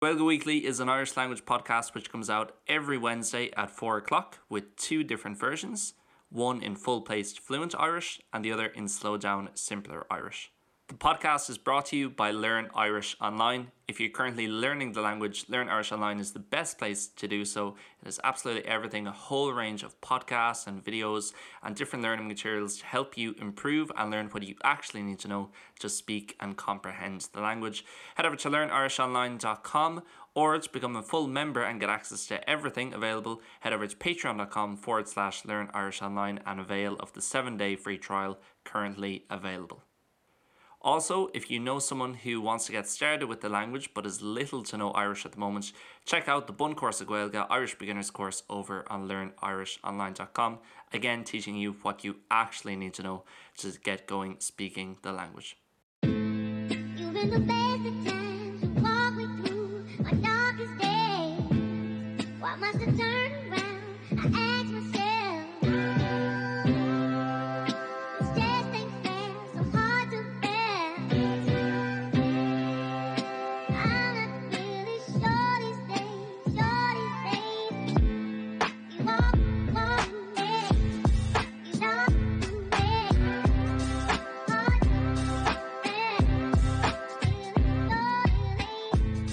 Gaeilge Weekly is an Irish language podcast which comes out every Wednesday at 4 o'clock with two different versions, one in full-paced fluent Irish and the other in slow down simpler Irish. The podcast is brought to you by Learn Irish Online. If you're currently learning the language, Learn Irish Online is the best place to do so. It is absolutely everything, a whole range of podcasts and videos and different learning materials to help you improve and learn what you actually need to know to speak and comprehend the language. Head over to learnirishonline.com or to become a full member and get access to everything available, head over to patreon.com forward slash learn Irish online and avail of the 7-day free trial currently available. Also, if you know someone who wants to get started with the language but is little to no Irish at the moment, check out the Bun Course of Gaeilge Irish Beginners course over on learnirishonline.com, again teaching you what you actually need to know to get going speaking the language. You've been the best of times to walk me through my darkest days. Why must I turn around? I ask myself. This just ain't fair, so hard to bear. I'm not really sure these days, sure these days. You walk, walk me, you talk to me. Hard to bear.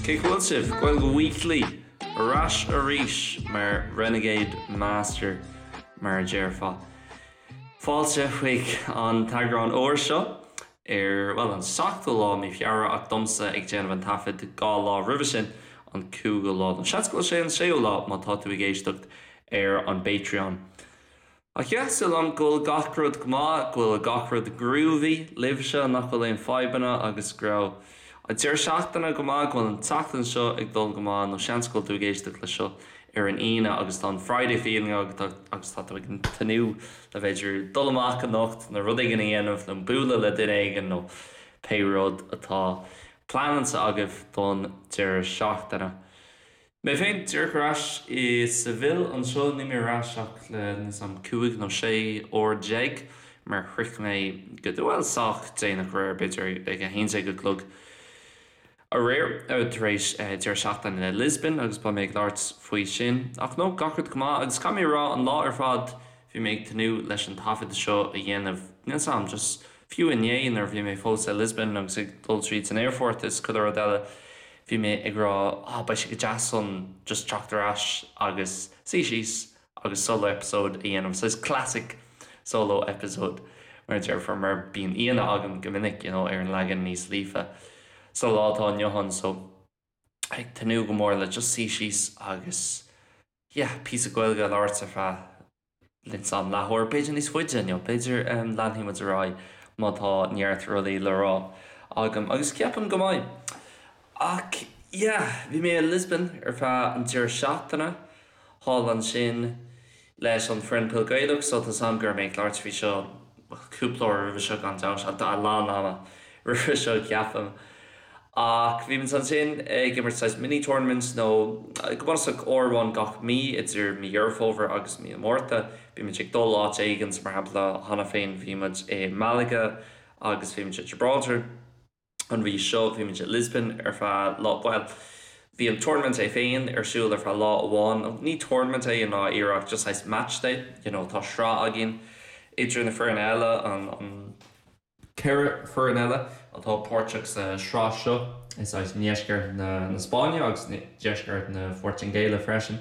Cén chaoi a bhfuil sibh? Gaeilge Weekly ar ais arís mar Renegade Master mar a déarfá. Fáilte chuig an t-eagrán úr seo ar, bhuel, an seachtú lá mí Feabhra ach domsa ag déanamh an taifead 2 lá roimhe sin, an cúigiú lá. Nó seans go bhfuil sé an séú lá má tá tú ag éisteacht ar an bPatreon. Ach yeah, súil agam go bhfuil gach rud go maith, go bhfuil gach rud groovy libhse, nach bhfuil aon fadhbanna agus go raibh an deireadh seachtaine go maith, go bhfuil an tseachtain seo ag dul go maith nó seans go bhfuil tú ag éisteacht leis seo ar an Aoine agus tá an Friday feeling agat agus tá tú ag tnúth le b'fhéidir dul amach anocht nó rud éigin a dhéanamh nó bualadh le duine éigin nó pé rud atá pleanáilte agaibh don deireadh seachtaine. Mé féin díreach ar ais i Seville anseo, níl mé ar ais ach le níl 's a'm 15 nó 16 uair mar shroich mé go, bhuel sách déanach aréir, b'fhéidir ag 11 a chlog aréir tar éis deireadh seachtaine i Lisbon agus beidh mé ag labhairt faoi sin. Ach no, gach rud go maith agus caithfidh mé a rá an lá ar fad bhí mé ag tnúth leis an taifead seo a dhéanamh, níl 's a'm, just fiú inné nuair a bhí mé fós i Lisbon agus ag dul tríd san aerfort is chuile rud eile, Bhí mé ag rá ah beidh sé go deas an just teacht ar ais agus suí síos agus solo episode a dhéanamh, saghas classic solo episode mar a déarfá mar bíonn aíonna agam go minic you know ar an leagan níos líofa sa lá atá inniu ann so ag tnúth go mór le just suí síos agus yeah píosa Gaeilge a labhairt ar feadh Níl 's a'm leathuair, b'fhéidir níos faide inniu, b'fhéidir leanfaidh muid ar aghaidh má tá neart rudaí le rá agam, agus ceapaim go mbeidh. Ach yeah, bhí mé i Lisbon ar feadh an deireadh seachtaine, thall ansin leis an foireann Peil Gaelach, so tá 's a'm go raibh mé ag labhairt faoi seo cúpla uair roimhe seo gan dabht, a lán ama roimhe seo ceapaim. Ach bhí muid ansin ag imirt saghas mini tournament nó go bunúsach uair amháin gach mí idir mí Dheireadh Fómhair agus mí an Mhárta. Bhí muid ag dul áit éigin, so mar shampla cheana féin bhí muid i Malaga agus bhí muid i Gibraltar. An mhí seo bhí muid i Lisbon ar feadh lá, bhuel bhí an tournament é féin ar siúl ar feadh lá amháin, nó ní tournament é i ndáiríre ach just saghas match day, you know tá sraith againn idir na foirne eile, an, an. 4 foireann eile atá páirteach sa sraith seo i saghas ndeisceart na Spáinne agus deisceart na Portaingéile freisin.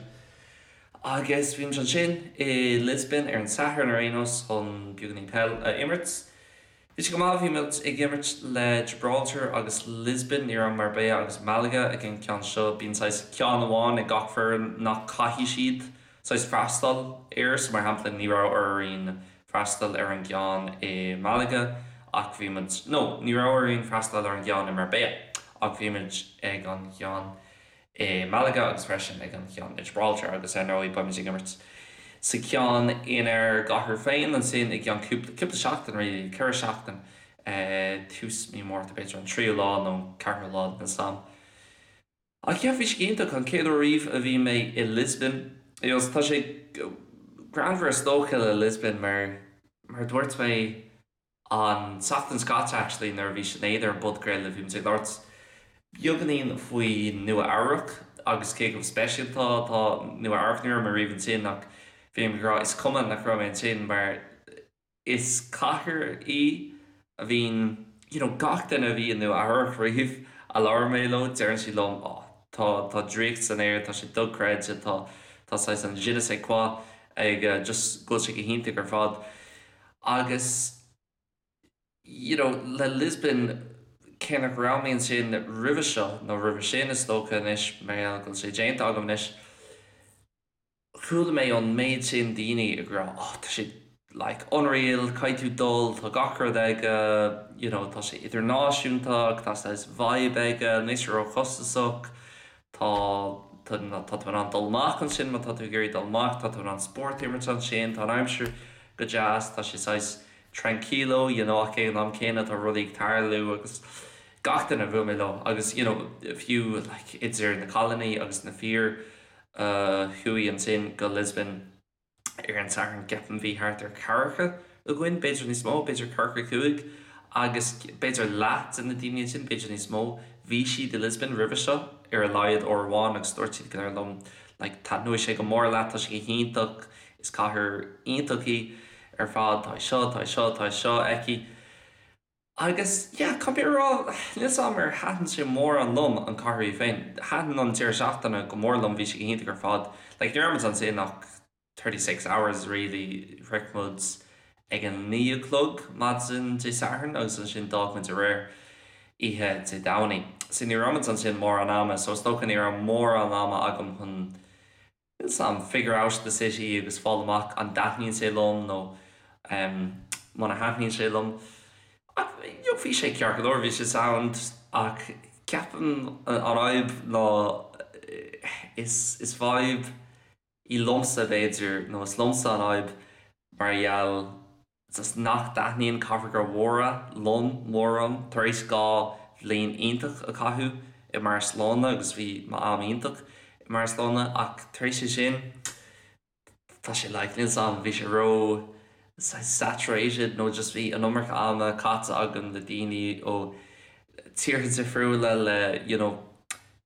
Agus bhí muid ansin i Lisbon ar an Satharn ar aon nós chun beagáinín peil a imirt. Bhí sé go maith, bhí muid ag imirt le Gibraltar agus Lisbon, ní raibh Marbella agus Malaga ag an ceann seo. Bíonn saghas ceann amháin ag gach foireann nach caithfidh siad saghas freastal air, so mar shampla ní raibh orainn freastal ar an gceann i Malaga ach bhí muid, no, ní raibh orainn freastal ar an gceann i Marbella ach bhí muid ag an gceann i Malaga agus freisin ag an cheann i Gibraltar agus ar ndóigh beidh muid ag imirt sa cheann inár gcathair féin ansin i gceann cúpla, cúpla seachtain really, 4 seachtain, tús mí Márta b'fhéidir an tríú lá nó an ceathrú lá níl 's a'm. Ach yeah, bhí sé go hiontach, an chéad uair riamh a bhí mé i Lisbon. Agus tá sé greannmhar is dócha le Lisbon mar, mar a dúirt mé an tseachtain seo caite actually nuair a bhí Sinéad ar an bpodchraoladh, bhí muid ag labhairt. Beagáinín faoi Nua Eabhrac agus cé chomh speisialta atá Nua Eabhrac. Ní raibh mé riamh ansin ach bhí mé ag rá is cuma nach raibh mé ansin mar is cathair í a bhíonn you know gach duine a bhí i Nua Eabhrac riamh a labhair mé leo deireann siad liom oh tá tá draíocht san aer tá sé dochreidte tá tá saghas an je ne sais quoi ag just go bhfuil sé go hiontach ar fad agus you know le Lisbon cé nach raibh mé ansin roimhe seo nó roimhe sin is dócha anois mar gheall go bhfuil sé déanta agam anois Chuala mé an méid sin daoine ag rá oh tá sé like unreal, caithfidh tú dul, tá gach rud aige, you know tá sé idirnáisiúnta ach tá saghas vibe aige, níl sé róchostasach, tá tá tá tú in ann dul amach ansin má tá tú ag iarraidh dul amach, tá tú in ann spórt a imirt ansin, tá an aimsir go deas, tá sé saghas tranquilo you know ach ag an am céanna tá rudaí ag tarlú agus gach duine a bhuail mé leo agus you know fiú like idir na cailíní agus na fir a chuaigh ansin go Lisbon ar an Satharn, ceapaim bhí thart ar ceathracha againn, b'fhéidir níos mó, b'fhéidir ceathracha cúig, agus b'fhéidir leath de na daoine ansin, b'fhéidir níos mó, bhí siad i Lisbon roimhe seo ar a laghad uair amháin agus dúirt siad go léir liom like taitneoidh sé go mór leat, tá sé go hiontach, is cathair iontach í ar fad, tá seo, tá seo, tá seo aici. Agus, yeah, caithfidh mé a rá, níl 's a'm ar thaitin sé mórán liom, an cathair í féin. Thaitin an deireadh seachtaine go mór liom, bhí sé go hiontach ar fad. Like, ní raibh muid ansin ach 36 hours really, shroich muid ag a naoi a chlog maidin Dé Sathairn agus ansin d'fhág muid aréir, oíche Dé Domhnaigh. So ní raibh muid ansin mórán ama, so is dócha ní raibh mórán ama agam chun Níl 's a'm, figure out the city agus fáil amach an dtaitníonn sé liom nó muna thaitníonn sé liom. Ach you know bhí sé ceart go leor, bhí sé sound ach ceapaim an fhadhb ná is is fadhb í liomsa b'fhéidir nó is liomsa an fhadhb mar gheall just nach dtaitníonn cathracha mhóra liom mórán. Tar éis 2 bhliain iontach a chaitheamh i mBarcelona agus bhí m'am iontach i mBarcelona ach tar éis sin tá sé like níl 's a'm bhí sé ró saturated nó just bhí an iomarca ama caite agam le daoine ó tíortha difriúla le you know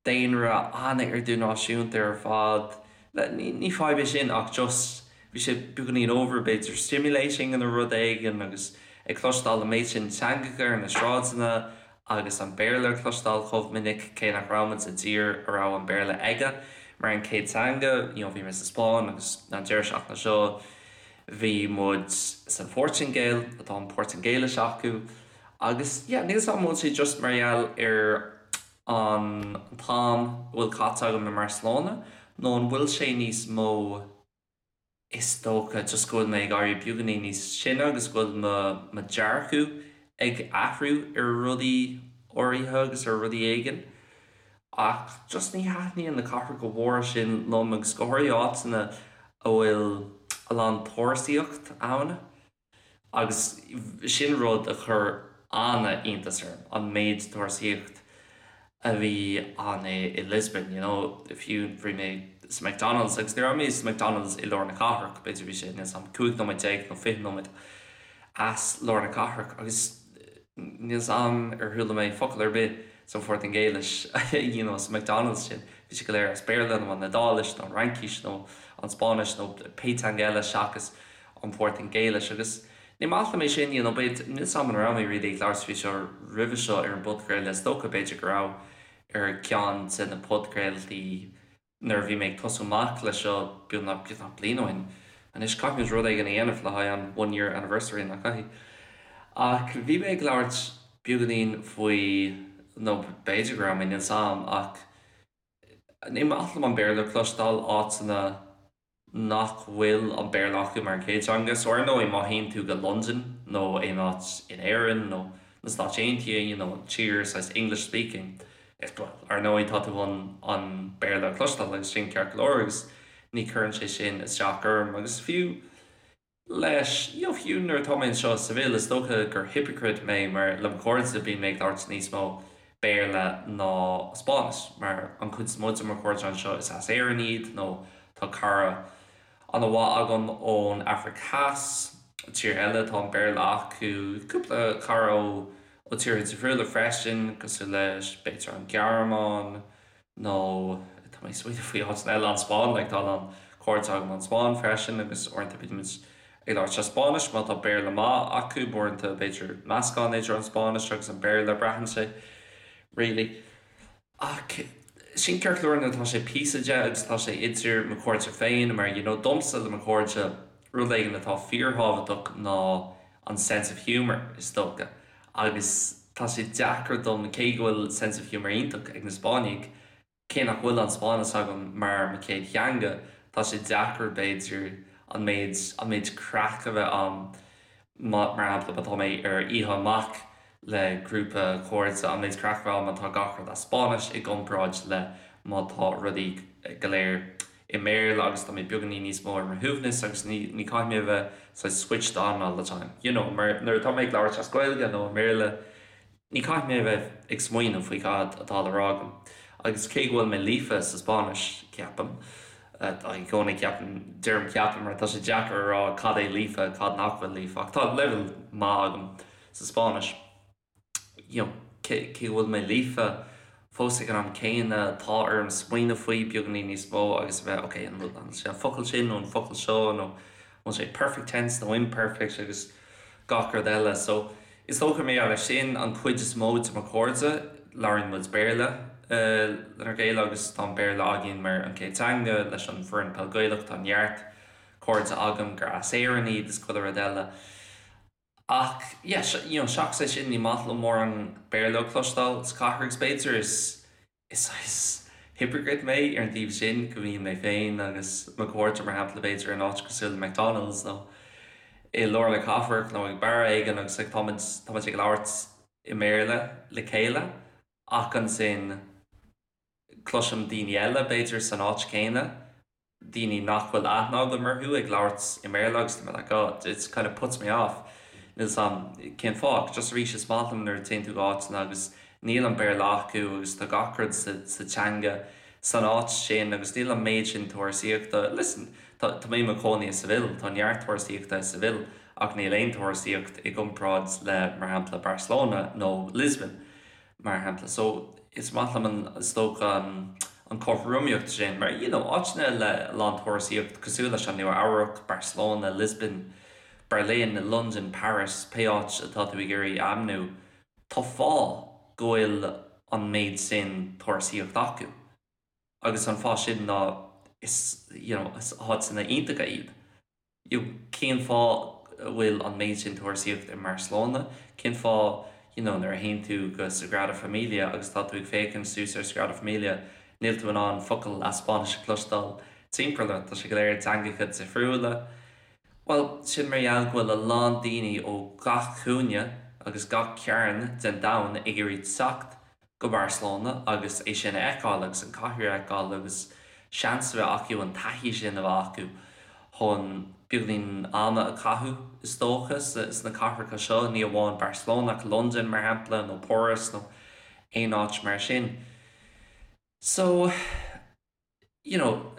daonra an-idirnáisiúnta ar fad. Ní fadhb é sin ach just bhí sé beagáinín over b'fhéidir stimulating nó rud éigin agus ag cloisteáil an méid sin teangacha ar na sráideanna agus an Béarla a chloisteáil chomh minic cé nach raibh muid i dtír a raibh an Béarla aige mar an chéad teanga. You know bhí mé sa Spáinn agus an deireadh seachtaine seo bhí muid san Phortaingéil atá an Portaingéilis acu agus yeah níl 's a'm an bhfuil sé just mar gheall ar an t-am a bhfuil caite agam i mBarcelona nó an bhfuil sé níos mó is dócha just go bhfuil mé ag éirí beagáinín níos sine agus go bhfuil mo mo dhearcadh ag athrú ar rudaí áirithe agus ar rudaí éigin ach just ní thaitníonn na cathracha mhóra sin liom agus go háirithe áiteanna a bhfuil a lán turasóireacht ann. Agus sin rud a chuir an-iontas orm, an méid turasóireacht a bhí ann i Lisbon, you know, fiú bhí mé sa McDonald's agus ní raibh mé sa McDonald's i lár na cathrach, b'fhéidir bhí sé, níl 's a'm, 15 nóiméad nó 20 nóiméad as lár na cathrach agus níl 's a'm ar chuala mé focal ar bith sa Phortaingéilis, you know, sa McDonald's sin, bhí sé go léir as Béarla nó an Iodáilis nó an Fhraincis nó an Spáinnis nó pé teanga eile seachas an Phortaingéilis agus ní maith liom é sin, you know, b'fhéidir, níl 's a'm an raibh mé really ag labhairt faoi seo roimhe seo ar an bpodchraoladh, is dócha b'fhéidir go raibh ar ceann de na podchraoltaí nuair a bhí mé ag tosú amach leis seo beagnach, beagnach bliain ó shin anois, caithfimid rud éigin a dhéanamh le haghaidh an one year anniversary, nach gcaithfidh? Ach bhí mé ag labhairt beagáinín faoi, nó b'fhéidir go raibh mé, níl 's a'm, ach ní maith liom an Béarla a chloisteáil áiteanna nach bhfuil an Béarla acu mar an chéad teanga. So ar ndóigh má théann tú go Londain nó aon áit in Éirinn nó na Stáit Aontaithe, you know, tír saghas English speaking, is well, ar ndóigh tá tú chun an Béarla a chloisteáil agus sin ceart go leor agus ní chuireann sé sin isteach orm agus fiú leis, you know, fiú nuair atá mé anseo i Seville, is dócha gur hypocrite mé mar le mo chairde bíonn mé ag labhairt níos mó Béarla ná Spáinnis mar an chuid is mó de mo chairde anseo is as Éirinn iad nó tá cara an-mhaith agam ón Afraic Theas, tír eile atá an Béarla acu, cúpla cara ó. ó tíortha difriúla freisin, cosúil leis, b'fhéidir an Ghearmáin nó tá mé ag smaoineamh faoi áiteanna eile, an Spáinn, like tá a lán cairde agam ón Spáinn freisin agus uaireanta bímid ag labhairt as Spáinnis má tá Béarla maith acu, uaireanta b'fhéidir meascán idir an Spáinnis agus an Béarla, braitheann sé really. Ach sin ceart go leor nuair atá sé píosa de agus tá sé idir mo chairde féin mar you know domsa le mo chairde rud éigin atá fíorthábhachtach ná an sense of humour is dócha agus tá sé deacair dom cé go bhfuil sense of humour iontach ag na Spáinnigh cé nach bhfuil an Spáinnis agam mar mo chéad theanga tá sé deacair b'fhéidir an méid an méid craic a bheith ann Mar shampla, má tá mé ar oíche amach le grúpa cairde, an méid craic a bheith ann má tá gach rud as Spáinnis i gcomparáid le má tá rudaí go léir i mBéarla agus tá mé beagáinín níos mó ar mo shuaimhneas agus ní ní caithfidh mé a bheith saghas switched on all the time. You know, mar nuair atá mé ag labhairt as Gaeilge nó i mBéarla, Ní caithfidh mé a bheith ag smaoineamh faoi cad atá le rá agam. Agus cé go bhfuil mé líofa sa Spáinnis, ceapaim, i gcónaí ceapaim, deirim ceapaim mar tá sé deacair a rá cad é líofa, cad nach bhfuil líofa, ach tá leibhéal maith agam sa Spáinnis. You know, cé go bhfuil mé líofa, fós ag an am céanna, tá orm smaoineamh faoi beagáinín níos mó agus a bheith, ok, an bhfuil sé an focal sin nó an focal seo nó an bhfuil sé perfect tense nó imperfect agus gach rud eile. So, Is dócha mar gheall air sin, an chuid is mó de mo chairde, labhraíonn muid Béarla lenár gcéile agus tá an Béarla againn mar an chéad teanga. Leis an bhfoireann Peil Gaelach tá neart cairde agam gur as Éirinn iad is chuile rud eile. Ach yeah, you know, seachas é sin ní maith liom mórán Béarla a chloisteáil sa chathair agus b'fhéidir is Is saghas hypocrite mé ar an taobh sin, go mbíonn mé féin agus mo chairde, mar shampla, b'fhéidir in áit cosúil le McDonald's nó i lár na cathrach nó ag beár éigin agus like táimid, táimid ag labhairt i mBéarla le chéile ach ansin cloisim daoine eile, b'fhéidir, san áit chéanna daoine nach bhfuil aithne agam orthu ag labhairt i mBéarla agus tá mé like oh it kind of puts me off níl 'fhios a'm cén fáth ach just arís is maith liom nuair a téann tú go áiteanna agus níl an Béarla acu agus tá gach rud sa sa teanga san áit sin agus níl an méid sin turasóireachta listen tá tá mé i mo chónaí i Seville tá neart turasóireachta i Seville ach níl aon turasóireacht i gcomparáid le mar shampla Barcelona nó Lisbon mar shampla. So, is maith liom an, is dócha, an chothromaíocht sin, mar, you know, áiteanna le a lán turasóireacht cosúil leis an Nua Eabhrac, Barcelona, Lisbon, Berlin, London, Paris, pé áit atá tú ag iarraidh a ainmniú, tá fáth go bhfuil an méid sin turasóireacht acu. Agus an fáth sin ná is, you know, is áiteanna iontacha iad. You know, cén fáth a bhfuil an méid sin turasóireacht i mBarcelona? Cén fáth, you know, nuair a théann tú go Sagrada Familia agus tá tú ag féachaint suas ar Sagrada Familia, níl tú in ann focal as Spáinnis a chloisteáil timpeall ort, tá sé go léir i dteangacha difriúla. Bhuel, sin mar gheall go bhfuil a lán daoine ó gach cúinne agus gach cearn den domhan ag iarraidh teacht go Barcelona agus é sin a fheiceáil agus an cathair a fheiceáil agus seans a bheith acu an taithí sin a bheith acu chun beagáinín ama a chaitheamh is dócha sna cathracha seo, ní amháin Barcelona ach Londain mar shampla nó Páras nó aon áit mar sin. So. you know,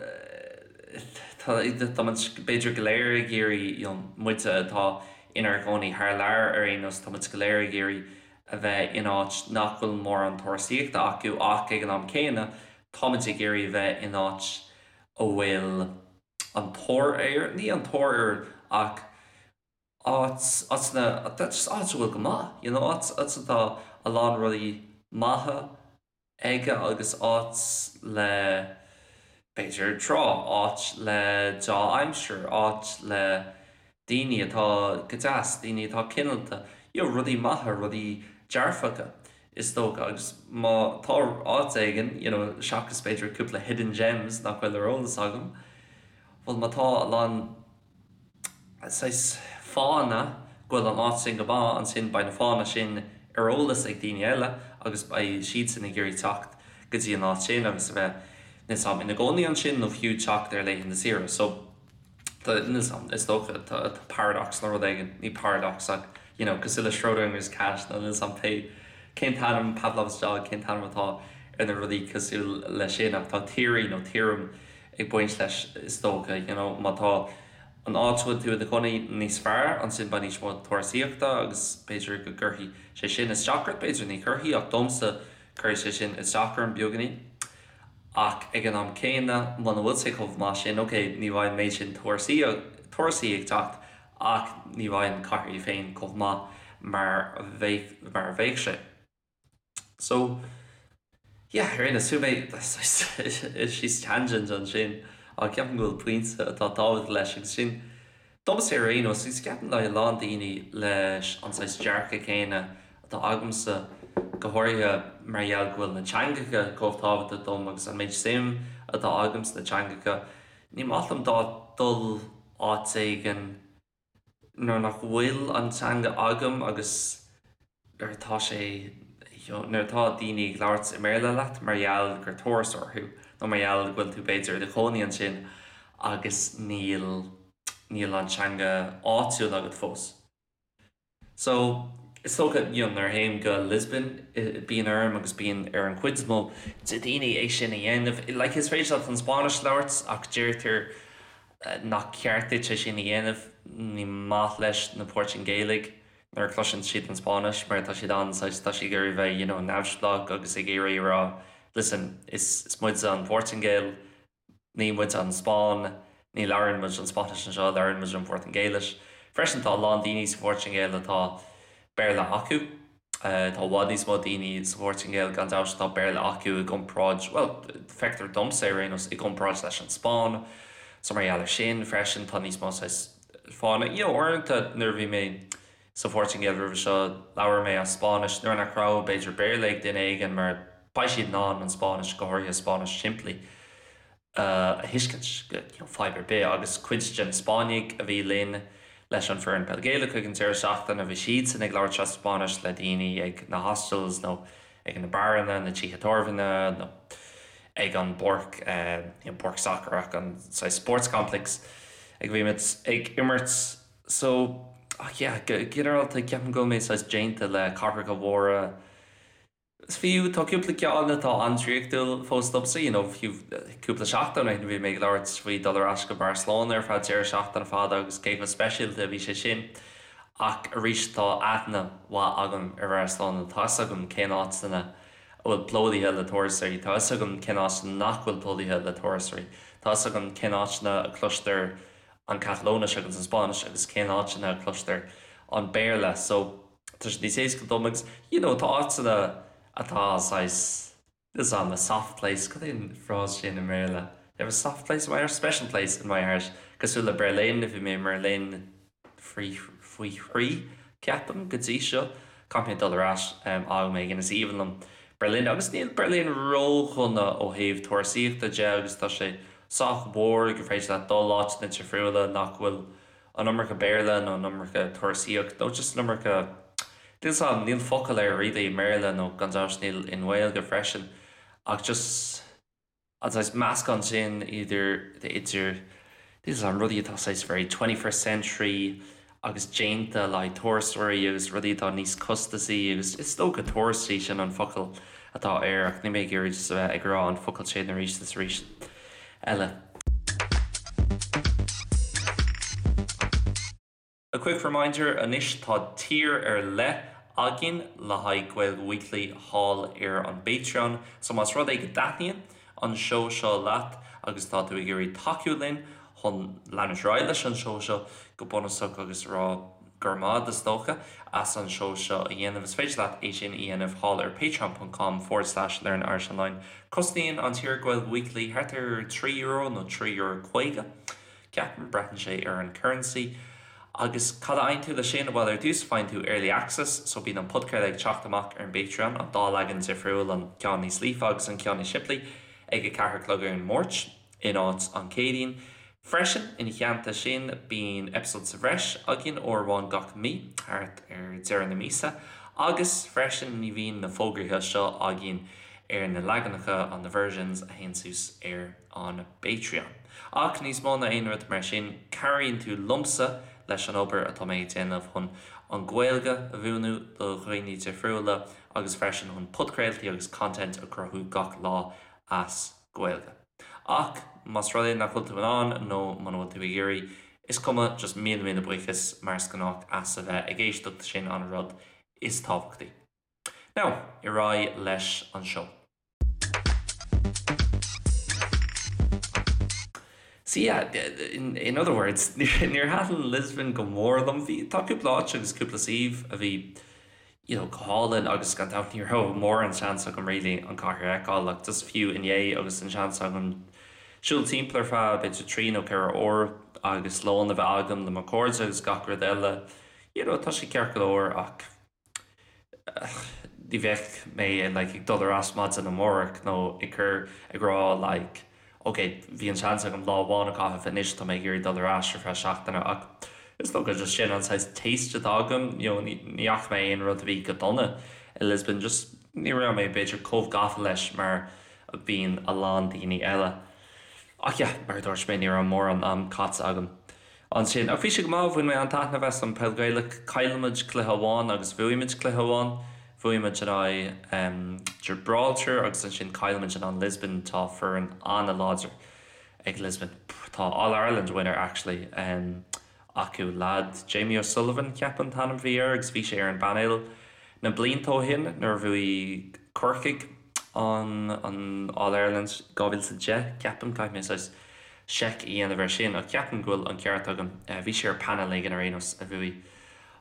tá muid b'fhéidir go léir ag iarraidh, you know, muide atá inár gcónaí thar lear ar aon nós, tá muid go léir ag iarraidh a bheith in áit nach bhfuil mórán turasóireachta acu ach ag an am céanna táimid ag iarraidh a bheith in áit a bhfuil an tóir air, ní an tóir air ach áit, áiteanna, just áit a bhfuil go maith, you know, áit, áit atá a lán rudaí maithe aige agus áit le, b'fhéidir, trá, áit le deá-aimsir, áit le daoine atá go deas, daoine atá cineálta, you know, rudaí maithe, rudaí dearfacha, is dócha. Agus má tá áit éigin, you know, seachas b'fhéidir cúpla hidden gems nach bhfuil ar eolas agam, bhuel má tá a lán, saghas fáthanna go bhfuil an áit sin go maith, ansin beidh na fáthanna sin ar eolas ag daoine eile agus beidh siadsan ag iarraidh teacht go dtí an áit sin agus a bheith, níl 's a'm, ina gcónaí ansin nó fiú teacht ar laethanta saoire. So, tá, níl 's a'm, is dócha, tá paradox nó rud éigin, ní paradox ach, you know, cosúil le Schrodinger's cat nó níl 's a'm pé, cén t-ainm, Pavlov's dog, cén t-ainm atá ar na rudaí cosúil leis sin ach tá theory nó theorem ag baint leis is dócha, you know, má tá. an áit a bhfuil tú i do chónaí níos fearr, ansin beidh níos mó turasaíochta agus b'fhéidir go gcuirfidh sé sin isteach ort, b'fhéidir ní chuirfidh ach domsa cuirfidh sé sin isteach orm beagáinín. Ach ag an am céanna, muna bhfuil sé chomh maith sin, ok, ní bheidh an méid sin turasaí ag teacht ach ní bheidh an chathair í féin chomh maith mar a bheadh sé. So, yeah, ar aon nós, chuaigh mé síos tangent ansin ach ceapaim go bhfuil pointe atá tábhachtach leis agus sin, domsa ar aon nós, agus ceapaim le a lán daoine leis an saghas dearcadh céanna atá agamsa, go háirithe mar gheall go bhfuil na teangacha chomh tábhachtach dom agus an méid suim atá agam sna teangacha, ní maith liom dul áit éigin nuair nach bhfuil an teanga agam agus nuair atá sé nuair atá daoine ag labhairt i mBéarla leat mar gheall gur turasóir thú nó mar gheall go bhfuil tú b'fhéidir i do chónaí ansin agus níl níl an teanga áitiúil agat fós. So, is dócha, you know, nuair a théim go Lisbon bíonn orm agus bíonn ar an chuid is mó de daoine é sin a dhéanamh. Like, is féidir leat an Spáinnis a labhairt ach deirtear nach ceart duit é sin a dhéanamh. Ní maith leis na Portaingéalaigh nuair a chloiseann siad an Spáinnis mar tá siad an-saghas, tá siad ag iarraidh bheith, you know, neamhspleách agus ag iarraidh a rá, listen, is is muide an Phortaingéil, Ní muid an Spáinn, ní labhrann muid an Spáinnis anseo, labhrann muid an Phortaingéilis. Freisin tá a lán daoine sa Phortaingéil atá Béarla acu. Tá i bhfad níos mó daoine sa Phortaingéil gan dabht atá Béarla acu i gcomparáid, bhuel, feictear domsa ar aon nós, i gcomparáid leis an Spáinn. So mar gheall ar sin freisin tá níos mó saghas fána, you know, uaireanta nuair a bhí mé sa Phortaingéil roimhe seo labhair mé as Spáinnis nuair nach raibh b'fhéidir Béarla ag duine éigin mar beidh siad in ann an Spáinnis, go háirithe Spáinnis simplí, a thuiscint you know, fadhb ar bith. Agus cuid de na Spáinnigh a bhí linn leis an foireann peil Gaelach ag an deireadh seachtaine, bhí siadsan ag labhairt as Spáinnis le daoine ag na hostels nó ag na beáranna, na tithe tábhairne nó ag an bpáirc, you know, páirc sacair ach an saghas sports complex ag a bhí muid ag imirt. So, ach yeah, go ginearálta ceapaim go bhfuil mé saghas déanta le cathracha mhóra. Is fiú, tá cúpla ceann atá an-draíochtúil fós domsa, you know, fiú cúpla seachtain ó shin bhí mé ag labhairt faoi dul ar ais go Barcelona ar feadh deireadh seachtaine fada agus cé chomh speisialta a bhí sé sin. Ach arís tá aithne mhaith agam ar Bharcelona, tá 'fhios agam cén áiteanna a bhfuil plódaithe le turasóirí, tá 'fhios agam cén áiteanna nach bhfuil plódaithe le turasóirí, tá 'fhios agam cén áiteanna a cloistear an Catalóinis agus an Spáinnis agus cén áiteanna a cloistear an Béarla. So. tá sé níos éasca dom agus you know tá áiteanna atá saghas is am a soft place, cad é an frás sin i mBéarla? You have a soft place in my heart, special place in my heart cosúil le Berlin, bhí mé i mBerlin faoi faoi thrí ceapaim go dtí seo, caithfidh mé dul ar ais am éigin, is aoibhinn liom Berlin agus níl Berlin ródhona ó thaobh turasaíochta de agus tá sé sách mór gur féidir leat dul áiteanna difriúla nach bhfuil an iomarca Béarla nó an iomarca turasaíocht nó just an iomarca, níl 's a'm, níl focal air really i mBéarla nó gan dabht níl i nGaeilge freisin ach just an saghas meascán sin idir, idir, níl 's a'm, rudaí atá saghas very twenty first century agus déanta le haghaidh turasóirí agus rudaí atá níos costasaí agus is dócha turastaí sin an focal atá air ach níl mé ag iarraidh just a bheith ag rá an focal sin arís is arís eile. A quick reminder, anois tá tier ar leith againn le haghaidh Gaeilge Weekly thall ar an bPatreon, so más rud é go dtaitníonn an seó seo leat agus tá tú ag iarraidh tacú linn chun leanúint ar aghaidh leis an seó seo go bunúsach agus a rá go raibh maith is dócha as an seó seo a dhéanamh, is féidir leat é sin a dhéanamh thall ar patreon ponc com forward slash learn Irish online. Cosnaíonn an tier Gaeilge Weekly thart ar €3 nó €3.50, ceapaim, braitheann sé ar an currency. Agus cad a fhaigheann tú leis sin? Bhuel, ar dtús faigheann tú early access, so bíonn an podchraoladh ag teacht amach ar an bPatreon, an dá leagan difriúil, an ceann níos líofa agus an ceann níos simplí, ag 4 a chlog ar an Máirt. in áit an Chéadaoin. Freisin, ina theannta sin, bíonn episode sa bhreis againn uair amháin gach mí, thart ar deireadh na míosa, agus freisin ní bhíonn na fógraithe seo againn ar na leaganacha, on the versions, a théann suas ar an bPatreon. Ach níos mó ná aon rud mar sin, cabhraíonn tú liomsa leis an obair atá mé ag déanamh chun an Ghaeilge a mhúineadh do dhaoine difriúla agus freisin chun podchraoltaí agus content a chruthú gach lá as Gaeilge. Ach más rud é nach bhfuil tú in ann nó muna bhfuil tú ag iarraidh Is cuma, just míle míle buíochas mar is gnách as a bheith ag éisteacht, sin an rud is tábhachtaí. Now, ar aghaidh leis an seó. So yeah, in, in other words, níor thaitin Lisbon go mór liom. Bhí, tá cúpla áit agus cúpla suíomh a bhí you know, go hálainn agus gan dabht ní raibh mórán seans agam really an cathair a fheiceáil ach just fiú inné agus an seans agam siúl timpeall ar feadh b'fhéidir 3 nó 4 uair agus lón a bheith agam le mo chairde agus gach rud eile, you know, tá sé ceart go leor ach ní bheadh mé like ag dul ar ais maidin amárach nó ag cur ag rá like ok bhí an seans agam lá amháin a chaitheamh anois tá mé ag iarraidh dul ar ais ar feadh seachtaine ach is dócha just sin an saghas taste atá agam you know ní fhaca mé aon rud a bhí go dona i Lisbon just ní raibh mé b'fhéidir chomh gafa leis mar a bhíonn a lán daoine eile ach yeah mar a dúirt mé ní raibh mórán am caite agam Ansin, ach bhí sé go maith, bhain mé an-taitneamh as an Peil Gaelach. Chaill muid cluiche amháin agus bhuaigh muid cluiche amháin. Bhuaigh muid in aghaidh Gibraltar agus ansin chaill muid in aghaidh Lisbon. Tá foireann an-láidir ag Lisbon. Tá All Ireland winner actually acu, lad Jamie O'Sullivan ceapaim an t-ainm a bhí air agus bhí sé ar an bpainéal na blianta ó shin nuair a bhuaigh Corcaigh an an All Ireland 2010 ceapaim, caithfidh mé saghas seic a dhéanamh air sin ach ceapaim go bhfuil an ceart agam. Bhí sé ar panel éigin ar aon nós a bhuaigh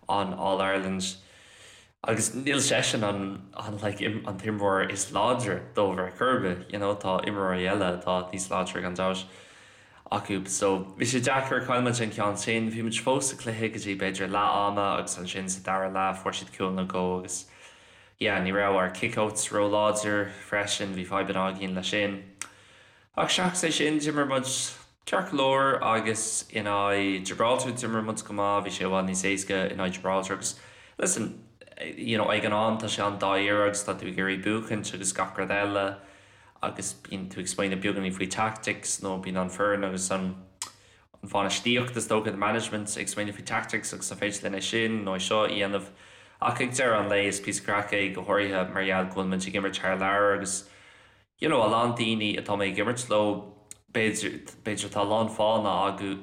an All Ireland agus níl seisean an an like an t-imreoir is láidre dóibh ar chor ar bith, you know, tá imreoirí eile atá níos láidre gan dabht acu. So bhí sé deacair, chaill muid an ceann sin, bhí muid fós sa chluiche go dtí b'fhéidir leath ama agus ansin sa dara leath fuair siad cúl nó dhó agus yeah ní raibh ár kick-outs ró-láidir freisin, bhí fadhbanna againn leis sin. Ach seachas é sin, d'imir muid ceart go leor agus in aghaidh Gibraltar d'imir muid go maith, bhí sé i bhfad níos éasca in aghaidh Gibraltar agus listen, you know, ag an am tá sé an-dáiríre agus tá tú ag iarraidh buachaint agus gach rud eile agus bíonn tú ag smaoineamh beagáinín faoi tactics nó bíonn an foireann agus an an bhainistíocht is dócha, the management, ag smaoineamh faoi tactics agus an féidir linn é sin nó é seo a dhéanamh ach ag deireadh an lae is píosa craic é go háirithe mar gheall go bhfuil muid ag imirt thar lear agus you know, a lán daoine atá mé ag imirt leo, b'fhéidir, b'fhéidir tá a lán fáthanna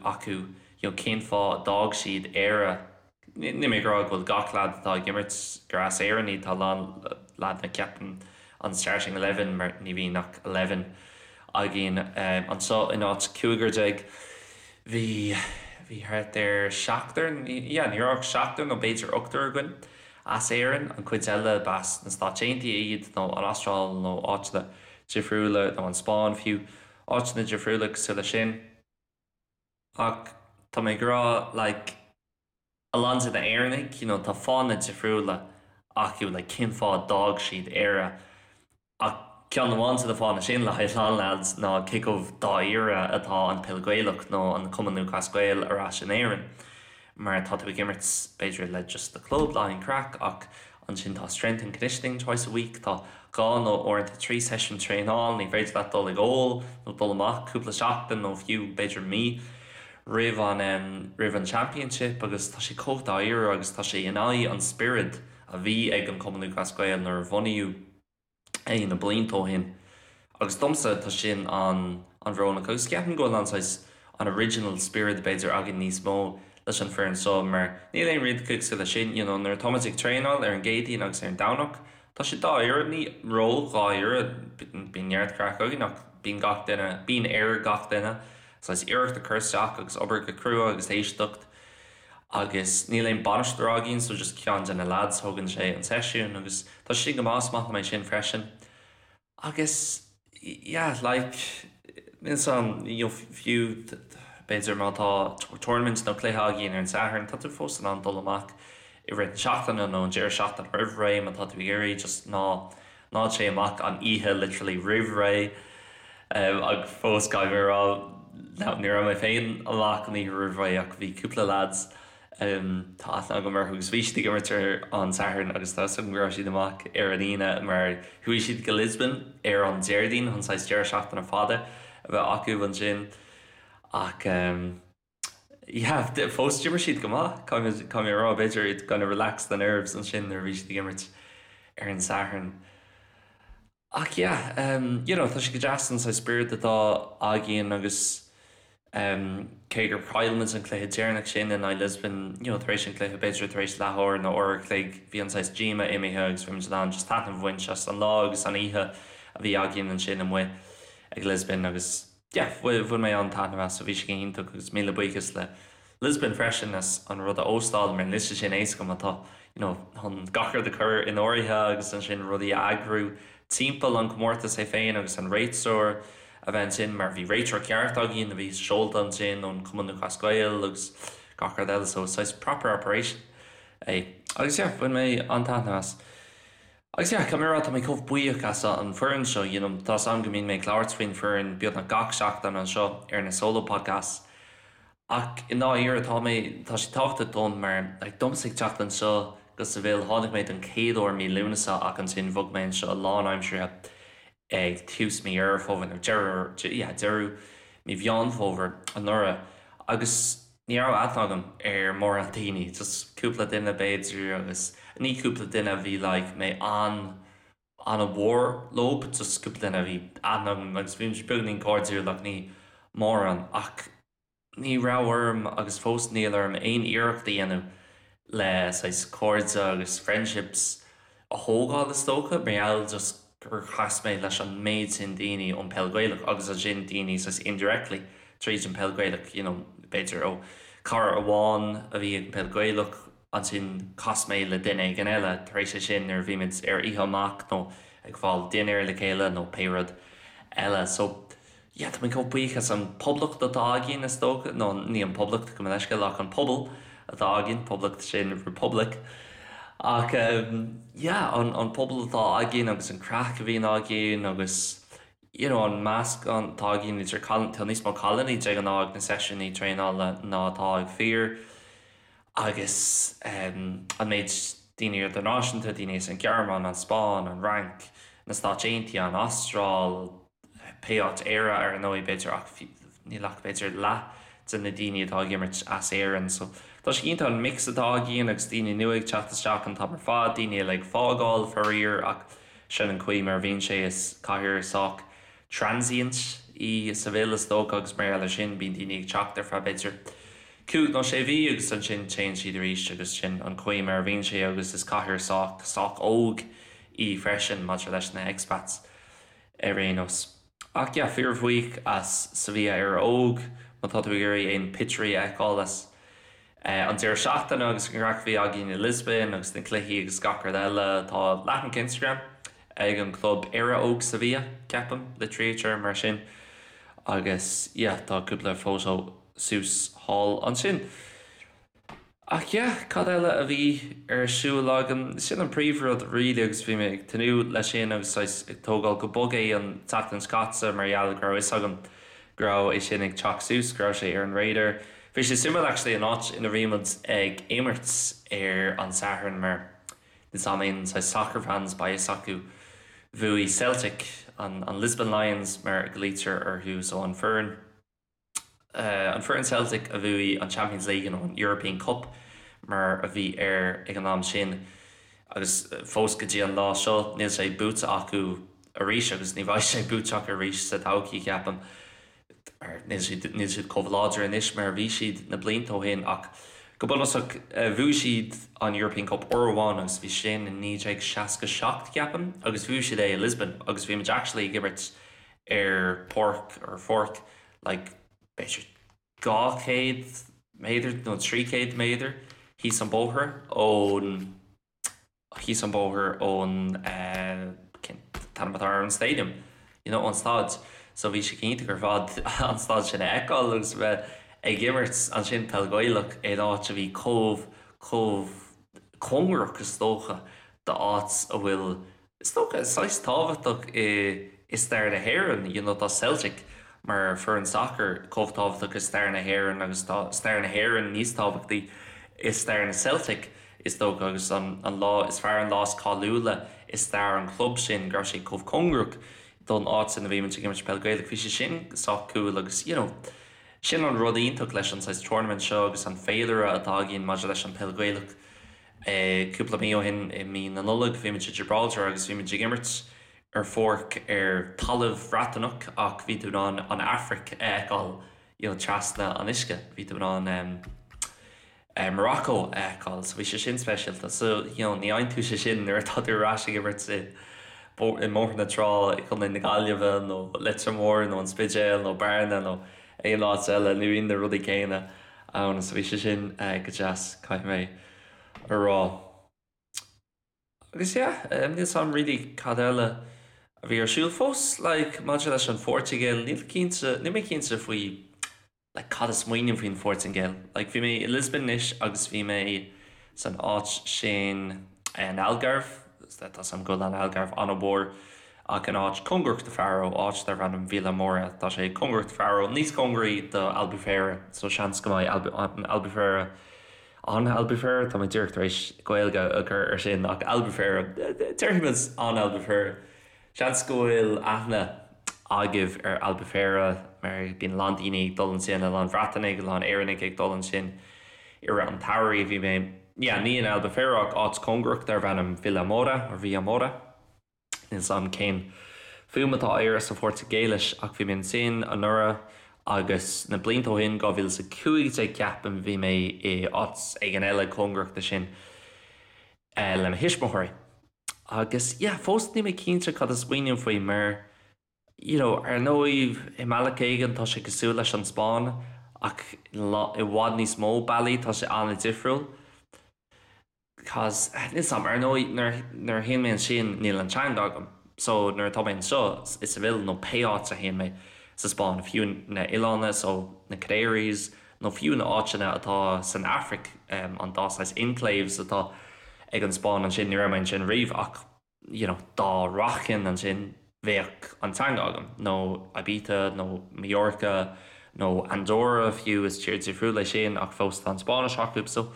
acu, you know, cén fáth a d'fhág siad Éire. Níl mé ag rá go bhfuil gach leaid atá ag imirt gur as Éirinn iad, tá a lán leaideanna ceapaim an starting eleven mar ní bhíonn ach eleven againn anseo in áit cúigear déag. Bhí, bhí thart ar seachtar, yeah, ní raibh ach seachtar nó b'fhéidir ochtar againn. As Éirinn, an chuid eile b'as na Stáit Aontaithe iad, nó an Astráil nó áiteanna difriúla, nó an Spáinn fiú, áiteanna difriúla cosúil leis sin. Ach tá mé ag rá, like, a lán de na Éireannaigh, you know, tá fáthanna difriúla acu, like, cén fáth a d'fhág siad Éire. Ach ceann amháin de na fáthanna sin le haghaidh a lán leaids ná cé chomh dáiríre atá an Peil Gaelach nó an Cumann Lúthchleas Gael ar ais in Éirinn. Mar tá tú ag imirt b'fhéidir le just do club le haghaidh an craic ach ansin tá strength and conditioning twice a week, tá dhá nó uaireanta trí seisiún traenáil, ní féidir leat dul ag ól nó dul amach cúpla seachtain nó fiú b'fhéidir mí roimh an roimh an championship agus tá sé chomh dáiríre agus tá sé in aghaidh an spiorad a bhí ag an Cumann Lúthchleas Gael nuair a bhunaíodh é na blianta ó shin. Agus domsa tá sin an an-bhrónach agus ceapaim go bhfuil an saghas an original spiorad b'fhéidir againn níos mó leis an foireann seo mar níl aon rud cosúil leis sin you know nuair atá muid ag traenáil ar an gCéadaoin agus ar an Domhnach tá sé dáiríre, ní ró-dháiríre, bíonn neart craic againn ach bíonn gach duine, bíonn ar gach duine saghas iarracht a chur isteach agus obair go crua agus éisteacht. agus níl aon bainisteoir againn so just ceann de na lads thógann sé an seisiún agus tá sé sin go maith, is maith liom é sin freisin. Agus yeah like níl 's a'm you know fiú b'fhéidir má tá tournament nó cluiche againn ar an Satharn tá tú fós in ann dul amach i rith na seachtaine nó an deireadh seachtaine roimh ré má tá tú ag iarraidh just ná ná téigh amach an oíche literally roimh ré ach fós caithfidh mé a rá ní raibh mé féin amach an oíche roimh ré ach bhí cúpla lads tá aithne agam orthu agus bhí siad ag imirt ar an Satharn agus tá 'fhios agam go raibh siad amach ar an Aoine mar chuaigh siad go Lisbon ar an Déardaoin chun saghas deireadh seachtaine fada a bheith acu ansin ach yeah, fós d'imir siad go maith, caithfidh mé a rá, b'fhéidir it kind of relaxed the nerves ansin nuair a bhí siad ag imirt ar an Satharn. Ach yeah, you know, tá sé go deas an saghas spiorad atá againn agus. Cé gur chaill muid an cluiche deireanach sin in aghaidh Lisbon, you know, tar éis an chluiche, b'fhéidir tar éis leathuair nó uair a chloig, bhí an saghas díoma imithe agus bhí muid in ann just taitneamh a bhaint as an lá agus an oíche a bhí againn ansin amuigh ag Lisbon agus yeah, bhain mé an-taitneamh as, so bhí sé go hiontach agus míle buíochas le Lisbon freisin as an rud a óstáil mar níl sé sin éasca má tá, you know, chun gach rud a chur in áirithe agus ansin rudaí a eagrú timpeall an comórtas é féin agus an réiteoir a bheith ansin mar bhí réiteoir ceart againn a bhí seolta ansin ón Cumann Lúthchleas Gael agus gach rud eile so saghas proper operation é. Agus yeah, bhain mé an-taitneamh as. Agus yeah, caithfidh mé a rá tá mé chomh buíoch as an foireann seo, you know, tá 's agam go mbíonn mé ag labhairt faoin foireann beagnach gach seachtain anseo ar na solo podcasts ach i ndáiríre tá mé, tá sé tábhachtach dom mar like domsa ag teacht anseo go Seville, tháinig mé don chéad uair mí Lúnasa ach ansin bhog mé anseo lánaimseartha ag tús mí Dheireadh Fómhair nó deireadh, yeah, deireadh mí Mheán Fómhair anuraidh agus ní raibh aithne agam ar mórán daoine, just cúpla duine b'fhéidir agus ní cúpla duine a bhí like mé an an-mhór leo, just cúpla duine a bhí aithne agam agus bhí muid beagainín cairdiúil ach ní mórán ach ní raibh orm agus fós níl orm aon iarracht a dhéanamh le saghas cairde agus friendships a thógáil is dócha mar gheall just gur chas mé leis an méid sin daoine ón peil Gaelach agus ansin daoine saghas indirectly tríd an peil Gaelach you know b'fhéidir ó cara amháin a bhí ag an peil Gaelach ansin chas mé le duine éigin eile tar éis é sin nuair a bhí muid ar oíche amach nó ag fáil dinnéar le chéile nó pé rud eile so yeah, tá mé chomh buíoch as an poblacht atá againn, is dócha, nó ní an poblacht, gabh mo leithscéal, ach an pobal atá againn, poblacht sin republic. Ach yeah, an, an pobal atá againn agus an craic a bhíonn againn agus you know, an meascán atá againn idir cailíní, tá níos mó cailíní de ghnáth ag na seisiúnaí traenála ná atá ag fir agus an méid daoine idirnáisiúnta, daoine as an Ghearmáin, an Spáinn, an Fhrainc, na Stáit Aontaithe, an Astráil, pé áit, Éire ar ndóigh b'fhéidir ach níl ach b'fhéidir leath de na daoine atá ag imirt as Éirinn so tá sé iontach an mix atá againn agus daoine nua ag teacht isteach an t-am ar fad, daoine eile ag fágáil faraor ach sin an chaoi mar a bhíonn sé is cathair sách transient í Seville is dócha agus mar gheall ar sin bíonn daoine ag teacht ar feadh b'fhéidir cúig nó sé mhí agus ansin téann siad arís agus sin an chaoi mar a bhíonn sé agus is cathair sách sách óg í freisin maidir leis na expats. ar aon nós. Ach yeah, fíorbhuíoch as Sevilla Éire Óg, má tá tú ag iarraidh aon pictiúirí a fheiceáil as an deireadh seachtaine agus an craic a bhí againn i Lisbon agus na cluichí agus gach rud eile, tá leathanach Instagram ag an chlub Éire Óg Sevilla, ceapaim, litrítear mar sin, agus yeah, tá cúpla photo suas thall ansin. Ach yeah, cad eile a bhí ar siúl agam? Sin an príomhrud really agus bhí mé ag tnúth leis sin agus saghas ag tógáil go bog é an tseachtain seo caite mar gheall go raibh fhios agam go raibh é sin ag teacht suas, go raibh sé ar an radar. Bhí sé suimiúil actually an áit ina bhí muid ag imirt ar an Satharn mar níl 's a'm aon saghas soccer fans beidh fhios acu bhuaigh Celtic, an Lisbon Lions mar a ghlaoitear orthu so an foireann. an foireann Celtic a bhuaigh an Champions League nó an European Cup mar a bhí air ag an am sin agus fós go dtí an lá seo níl sé buaite acu arís agus ní bheidh sé buaite acu arís sa todhchaí ceapaim mar níl siad níl siad chomh láidir anois mar a bhí siad na blianta ó shin ach go bunúsach bhuaigh siad an European Cup uair amháin agus bhí sin in 1967 ceapaim agus bhuaigh siad é i Lisbon agus bhí muid actually ag imirt ar páirc ar pháirc like b'fhéidir 200 méadar nó 300 méadar thíos an bóthar ón thíos an bóthar ón eh cén t-ainm atá ar an stadium you know ón staid so bhí sé iontach ar fad an staid sin a fheiceáil agus a bheith ag imirt ansin peil Ghaelach in áit a bhí chomh chomh cóngarach is dócha d'áit a bhfuil Is dócha, saghas tábhachtach i i stair na hÉireann, you know tá Celtic mar foireann sacair chomh tábhachtach i stair na hÉireann agus tá stair na hÉireann níos tábhachtaí i stair na Celtic is dócha agus an an lá is fearr an lá is cáiliúla i stair an chlub sin go raibh sé chomh cóngarach don áit ina bhí muid ag imirt peil Gaelach bhí sé sin sách cool agus you know sin an rud iontach leis an saghas tournament seo agus an féilire atá againn maidir leis an peil Ghaelach. Cúpla mí ó shin, i mí na Nollag, bhí muid i Gibraltar agus bhí muid ag imirt ar pháirc ar talamh Bhreataineach ach bhí tú in ann an Afraic a fheiceáil. you know trasna an uisce bhí tú in ann em eh Morocco a fheiceáil so bhí sé sin speisialta so you know ní fhaigheann tú sé sin nuair atá tú ar ais ag imirt i i mBóthar na Trá i gContae na Gaillimhe nó Leitir Móir nó an Spidéal nó Bearna nó aon áit eile ní bhíonn na rudaí céanna ann so bhí sé sin eh go deas caithfidh mé a rá. Agus yeah, níl 'fhios a'm really cad eile a bhí ar siúl. Fós like maidir leis an Phortaingéil, níl cinnte, níl mé cinnte faoi like cad a smaoiním faoin Phortaingéil. Like bhí mé i Lisbon anois agus bhí mé san áit sin an Algarve, tá 'fhios a'm go bhfuil an Algarve an-mhór ach in áit cóngarach do Faro, áit darb ainm Vila Moura, tá sé cóngarach do Faro, níos cóngaraí do Albufeira, so seans go mbeidh Albufeira An Albufeira, tá mé díreach tar éis Gaeilge a chur ar sin, ach Albufeira, déarfaimid an Albufeira. Seans go bhfuil aithne agaibh ar Albufeira mar bíonn a lán daoine ag dul ansin, a lán Breatanaigh, a lán Éireannaigh ag dul ansin i rith an tsamhraidh. Bhí mé, yeah, ní in Albufeira ach áit cóngarach darbh ainm Vila Moura, or Vilamoura. Níl 's a'm cén fuaim atá air sa Phortaingéilis ach bhí mé ansin anuraidh agus na blianta ó shin, 2015 ceapaim, bhí mé i áit éigin eile cóngarach do sin le mo thuismitheoirí. Agus yeah, fós níl mé cinnte cad a smaoiním faoi mar you know ar ndóigh i mbealach éigin tá sé cosúil leis an Spáinn ach i bhfad níos mó bealaí tá sé an-difriúil. Cause, níl 's a'm, ar ndóigh nuair nuair a théann mé ansin níl an teanga agam. So nuair atá mé anseo i Seville nó pé áit a théann mé sa Spáinn, fiú na oileána so na Canaries nó fiú na áiteanna atá san Afraic, an dá saghas enclaves atá ag an Spáinn ansin, ní raibh mé ansin riamh ach you know dá rachainn ansin bheadh an teanga agam, nó Ibiza nó Mallorca nó Andorra fiú, is tír difriúil é sin ach fós tá an Spáinnis acu so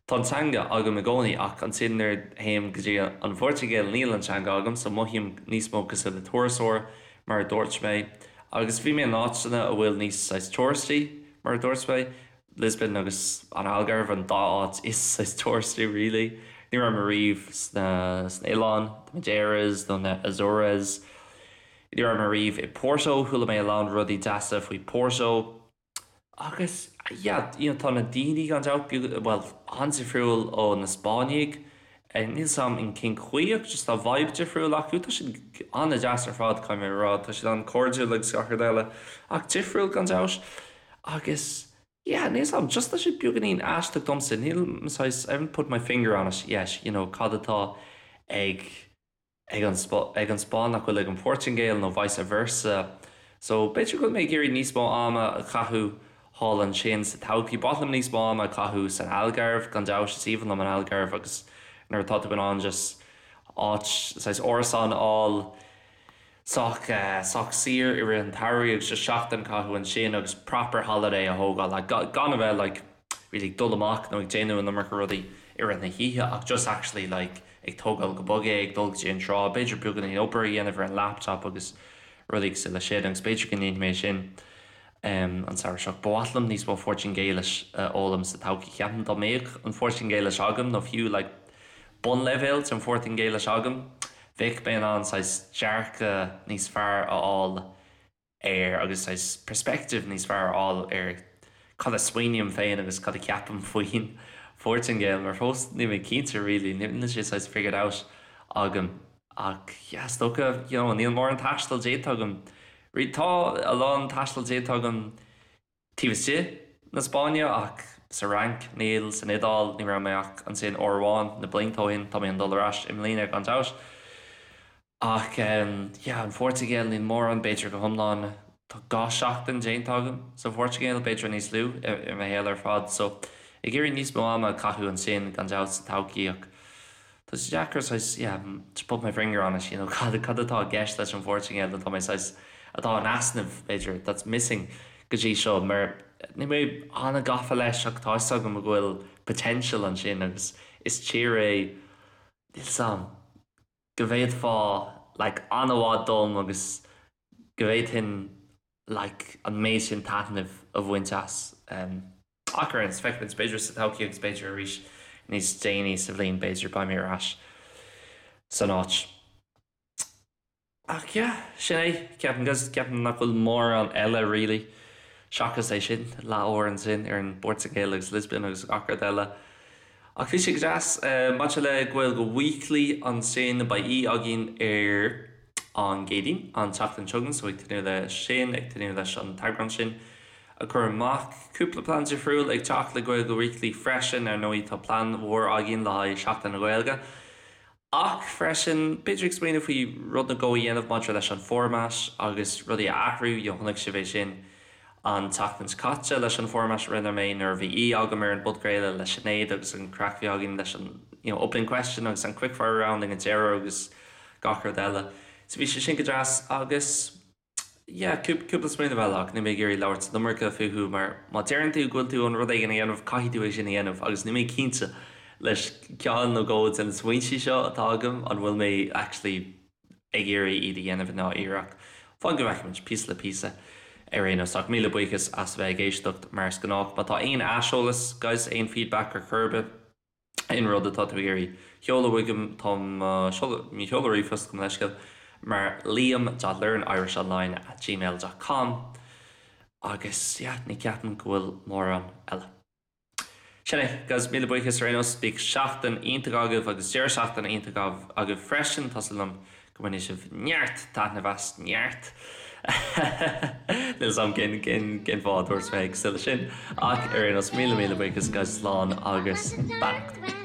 tá an teanga agam i gcónaí ach ansin nuair a théim go dtí an Phortaingéil níl an teanga agam so mothaím níos mó cosúil le turasóir mar a dúirt mé agus bhí mé in áiteanna a bhfuil níos saghas touristy mar a dúirt mé Lisbon agus an Algarve an dá áit is saghas touristy really. Ní raibh mé riamh sna sna oileáin, the Madeiras nó na Azores. Ní raibh mé riamh i Porto, chuala mé a lán rudaí deasa faoi Porto. Agus yeah, you know, tá na daoine gan dabht beag, bhuel, an-difriúil ó na Spáinnigh. Níl 'fhios a'm in cén chaoi ach just tá vibe difriúil acu. Tá siad an-deas ar fad, caithfidh mé a rá. Tá siad an-chairdiúil agus gach rud eile ach difriúil gan dabht. Agus yeah, níl 'fhios a'm, just tá sé beagáinín aisteach domsa, níl saghas, I haven't put my finger on it yet, you know, cad atá ag ag an ag an Spáinn nach bhfuil ag an Phortaingéil nó vice versa. So b'fhéidir go bhfuil mé ag iarraidh níos mó ama a chaitheamh thall ansin sa todhchaí. Ba mhaith liom níos mó ama a chaitheamh san Algarve, gan dabht, is aoibhinn liom an Algarve agus nuair atá tú in ann just áit, saghas árasán a fháil, sách sách saor i rith an tsamhraidh agus just seachtain a chaitheamh ansin agus proper holiday a thógáil like gan a bheith like really ag dul amach nó ag déanamh an iomarca rudaí i rith na hoíche ach just actually like ag tógáil go bog é, ag dul go dtí an trá, b'fhéidir beagáinín obair a dhéanamh ar an laptop agus rudaí cosúil leis sin agus b'fhéidir go ndéanfaidh mé sin an samhradh seo. Ba mhaith liom níos mó Phortaingéilis a fhoghlaim sa todhchaí. Ceapaim dá mbeadh an Phortaingéilis agam nó fiú like bunleibhéal den Phortaingéilis agam, bheadh mé in ann saghas dearcadh níos fearr a fháil air agus saghas perspective níos fearr a fháil ar cad a smaoiním féin agus cad a cheapaim faoin Phortaingéil mar fós níl mé cinnte really, níl sé saghas figured out agam ach yeah is dócha you know níl mórán taistil déanta agam, tá a lán taistil déanta agam Taobh istigh na Spáinne ach sa Fhrainc níl, san Iodáil ní raibh mé ach ansin uair amháin na blianta ó shin, tá mé chun dul ar ais i mbliana gan dabht. Ach yeah, an Phortaingéil níl mórán, b'fhéidir go hiomlán tá 2 seachtain déanta agam sa Phortaingéil, b'fhéidir níos lú i mo shaol ar fad so ag iarraidh níos mó ama a chaitheamh ansin gan dabht sa todhchaí ach Tá sé deacair saghas, yeah, to put my finger on it, you know, cad, cad atá i gceist leis an Phortaingéil atá mé saghas, atá in easnamh, b'fhéidir, that's missing go dtí seo, mar níl mé an-gafa leis ach tá 'fhios agam go bhfuil potential ansin agus is tír é, níl 'fhios a'm, go bhféadfá like an-mhaith dom agus go bhféadfainn like an méid sin taitnimh a bhaint as. Ach ar aon nós, feicfimid, b'fhéidir sa todhchaí agus b'fhéidir arís níos déanaí sa bhliain, b'fhéidir, beidh mé ar ais san áit. Ach yeah, sin é, ceapaim, ceapaim nach bhfuil mórán eile really. Seachas é sin, leathuair ansin ar an bPortaingéil agus Lisbon agus gach rud eile. Ach bhí sé go deas. Maidir le Gaeilge Weekly ansin, beidh aoi againn ar an gCéadaoin, an tseachtain seo chugainn, so ag tnúth le sin, ag tnúth leis an t-eagrán sin a chur amach. Cúpla plean difriúil ag teacht le Gaeilge Weekly freisin, ar ndóigh tá plean mhór againn le haghaidh Seachtain na Gaeilge. Ach freisin, b'fhéidir ag smaoineamh faoi rud nó dhó a dhéanamh maidir leis an format agus rudaí a athrú, you know chonaic sibh é sin an tseachtain seo caite leis an format a rinne mé nuair a bhí aoi agam ar an bpodchraoladh le Sinéad agus an craic a bhí againn leis an you know opening question agus an quickfire round ag an deireadh agus gach rud eile. So bhí sé sin go deas agus. Yeah, cúpla smaoineamh eile ach níl mé ag iarraidh labhairt an iomarca fúthu mar má deireann tú go bhfuil tú chun rud éigin a dhéanamh caithfidh tú é sin a dhéanamh agus níl mé cinnte leis ceann nó dhó de na smaointe seo atá agam an bhfuil mé actually ag iarraidh iad a dhéanamh i ndáiríre ach fan go bhfeicfimid, píosa le píosa ar aon nós. Ach míle buíochas as a bheith ag éisteacht mar is gnách. Má tá aon aiseolas guys, aon feedback ar chor ar bith, aon rud atá tú ag iarraidh sheoladh chugam, tá mo sheoladh ríomhphost gabh mo leithscéal mar liam dot learnirishonline at gmail dot com agus yeah, ní ceapaim go bhfuil mórán eile. Sin é, guys, míle buíochas ar aon nós, bíodh seachtain iontach agaibh agus deireadh seachtaine iontach agaibh freisin, tá súil agam go mbainfidh sibh neart taitneamh as, neart! Níl 'fhios a'm cén cén fáth a dúirt mé cosúil leis sin ach ar aon nós míle míle buíochas guys slán agus beannacht.